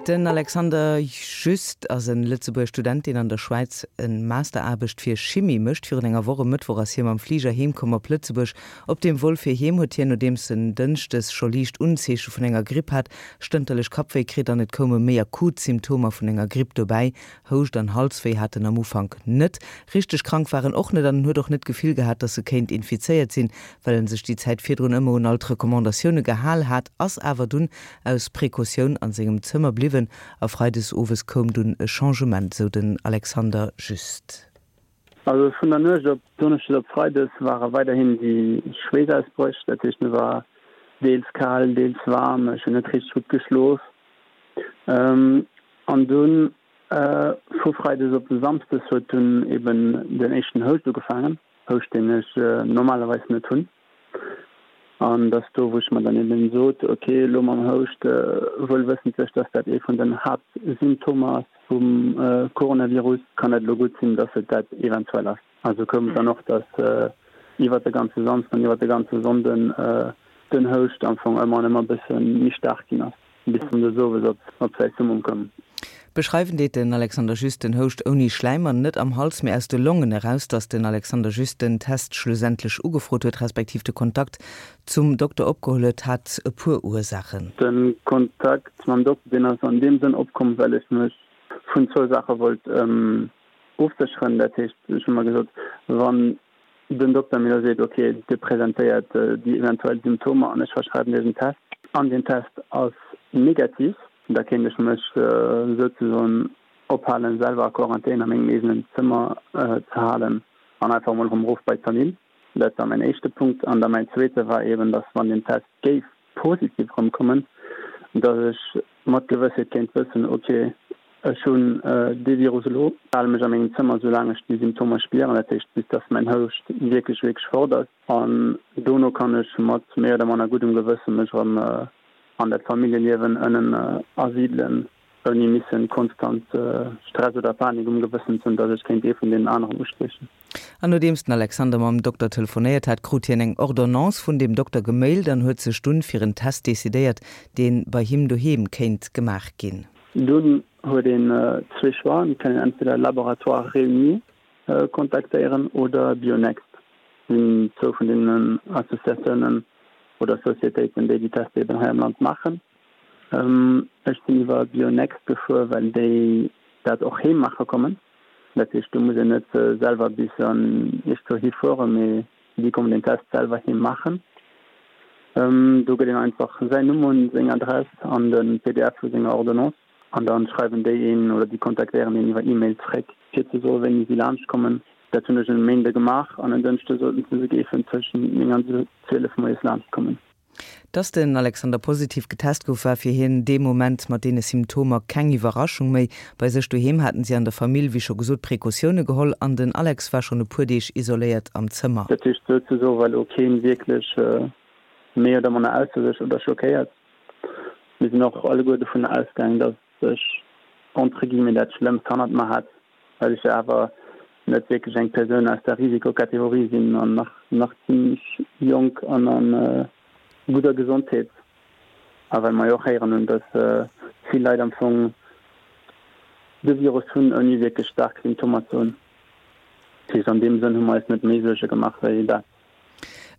Den Alexander Just ass en Lëtzebuerger Student, deen an der Schwäiz en Masteraarbecht fir Chimie mécht. Virun enger Woch e Mëttwoch ass hie mam Fliger heem komm op Lëtzebuerg. Op dem Vol fir heem huet hien, nodeems en Dënschdes scho liicht Unzeeche vun enger Gripp hat, stënterlech Kappwéi kritt an et koume méi akut Symptomer vun enger Gripp dobäi. Houscht an Halswéi hat en am Ufank net. Richteg krank war en och net an en huet och net d'Gefill gehat, dass e kéint infizéiert sinn, well en sech déi Zäit virdrun ëmmer un all d'Recommandatioune gehal hat, ass awer dunn aus Precautioun an sengem Zëmmer bliwwen a freides owes koum dunn e Changement, sou den Alexander Just. Also vun der Nuecht op Donneschdes op Freides ware weiderhin déi Schweessausbréch, dat heescht mir war deels kal, deels waarm, ech hunn net richteg gutt geschlof. An dunn vu Freides op Samsdes huet dunn eben den éischten Houscht ugefaangen, Houscht deen ech normalerweis net hunn. An dass do, wou ech mer dann eben sot, ok, elo mam Houscht, wuel wëssentlech, dass dat ee vun den Haaptsymptomer ass vum Coronavirus, kann et elo gutt sinn, dass et dat eventuell ass. Also koum et dann och, dass iwwert de ganze Samsden an iwwert de ganze Sonnden den Houscht am Fong ëmmer an ëmmer e bësse méi staark ginn ass. Bis en des Owes op säi Summum koum. Beschreiwen deet den Alexander Just den Houscht ouni Schläim an net am Hals, mee aus de Longen eraus. Datt den Alexander Just den Test schlussendlech ugefrot huet, respektiv de Kontakt zum Dokter opgeholl huet, hat e puer Ursaachen. De Kontakt mam Dokter, deen ass an deem Sënn opkomm, well ech mech vun zwou Saache wollt ofsécheren. Dat heescht, ech hu mer gesot, wann den Dokter mir elo seet, ok, Dir presentéiert déi eventuell Symptomer an ech verschreiwen Iech en Test an deen Test ass negativ, da kéint ech mech souzesoen ophalen, selwer a Quarantän a mengem eegenen Zëmmer ze halen an einfach emol erëm erof bei d'Famill. Dat war mäin éischte Punkt. An da mäin zweete war eeben, datt wann deen Test géif positiv erëmkommen, datt ech mat Gewëssheet kéint wëssen, ok, ech hunn dee Virus elo, hale mech a mengem Zëmmer soulaang ech déi Symptomer spieren, dat heescht bis datt mäin Houscht wierklech, wierklech fort ass, an dono kann ech mat méi oder manner guddem Gewësse mech erëm an dat Familljeliewen ënnen asidelen, ouni missen konstant Stress oder Panik um Gewëssen ze hunn, datt ech kéint ee vun deenen aneren ustiechen. An nodeems den Alexander mam Dokter telefonéiert hat, krut hien eng Ordonnance vun deem Dokter gemailt an huet sech dunn fir en Test decidéiert, deen bei him doheem kéint gemaach ginn. Dunn huet een zwee Choixen, et kann een entweder Laboratoire Réuni kontaktéieren oder Bionext, sinn zwou vun deenen Associatiounen oder Societéiten, déi déi Tester eben hei am Land maachen. Ech sinn iwwer Bionext gefuer, well déi dat och heem maache kommen. Dat heescht, do muss een net selwer bis an iergendwou hifueren, mee déi kommen den Test selwer heem maachen. Do gëtt een einfach säin Numm un, seng Adress an de pdf vu senger Ordonnance an da schreiwen déi een oder déi kontaktéieren een iwwer E-Mail zréck, fir ze soen, wéini si laanscht kommen. Dat hunn ech en Méinde gemaach an en Dënschde soten se, se géifen tëschent 9 an 12 moies laanscht kommen. Dass den Alexander positiv getest gouf, war fir hien dee Moment mat deene Symptomer keng Iwwerraschung méi. Bei sech doheem haten si an der Famill, wéi scho gesot, Precautioune geholl an den Alex war schonn e puer Deeg isoléiert am Zëmmer. Dat heescht souzesoe war elo keen wierklech méi oder manner ausser sech oder schockéiert. Mir sinn och alleguer dovun ausgaang, dass ech entre guillemets dat Schlëmmst hannert mer hat, well ech jo awer net wierklech eng Persoun aus der Risikokategorie sinn an nach nach zimmlech jonk an a gudder Gesondheet. A well mer jo och héieren hunn, datt vill Leit am Fong de Virus hunn, ouni wierklech staark Symptomer ze hunn. Dat heescht, an deem Sënn hu mer eis net méi Suerge gemaach wéi dat.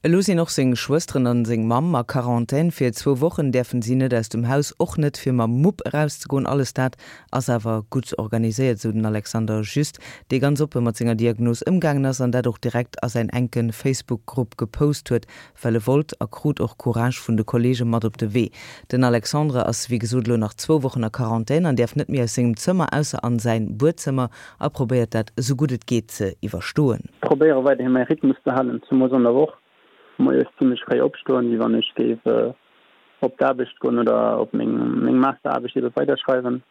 Elo sinn och seng Schwësteren an seng Mamm a Quarantän. Fir zwou Wochen däerfen si net aus dem Haus, och net fir mam Mupp erauszegoen. Alles dat ass awer gutt organiséiert, esou den Alexander Just, dee ganz oppe mat senger Diagnos ëmgaangen ass an dat och direkt a säin enke Facebook-Grupp gepost huet, well e wollt a krut och Courage vun de Kolleege mat op de Wee. Den Alexandre ass wéi gesot elo nach zwou Wochen a Quarantän an däerf net méi aus sengem Zëmmer, ausser an säin Buedzëmmer. A probéiert dat esou gutt et geet ze iwwerstoen. Probéiere weiderhi mäi Rhythmus ze halen, zemoos an der Woch, moies zimmlech fréi opstoen, wéi wann ech géif op d'Aarbecht goen oder op meng meng Masteraarbecht ebe weiderschreiwen.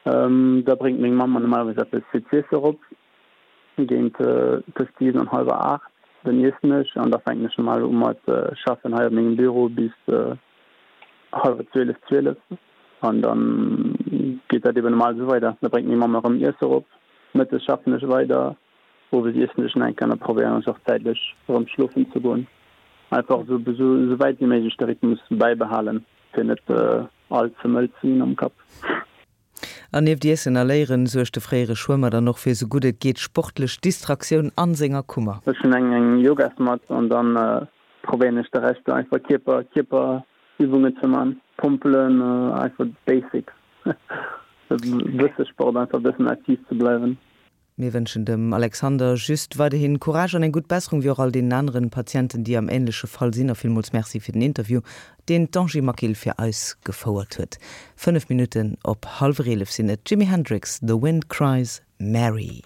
Da bréngt meng Mamm mer normalerweis eppes fir z'iesse erop, géint tëscht 7 an hallwer 8. Dann iessen ech an da fänken ech normal u mat schaffen hei op mengem Büro bis hallwer 12, 12. An dann geet dat eben normal esou weider. Da bréngt meng Mamm erëm Iesse erop. Mëttes schaffen ech weider, owes iessen ech nach eng Kéier an da probéieren ech och zäitlech erëm schlofen ze goen. Einfach esou esou wäit wéi méiglech de Rhythmus bäibehalen, fir net all ze mëll ze ginn am Kapp. An nieft Iessen a Léieren suergt de fréiere Schwëmmer dann och fir sou gutt et geet sportlech Distraktioun an senger Kummer. Ech hunn eng eng Yogasmatt an dann probéieren ech de Rescht einfach Kierper Kierperübungen ze man, Pompelen, einfach d'Basics, e bësse Sport, einfach e bëssen aktiv ze bleiwen. Mir wënschen dem Alexander Just weiderhin Courage an eng gutt Besserung, wéi och all deenen aneren Patienten, déi am ähnleche Fall sinn. A villmools Merci fir den Interview, deen d'Angie Maquil fir eis gefouert huet. 5 Minutten op hallwer 11 sinn et. Jimi Hendrix, The Wind Cries Mary.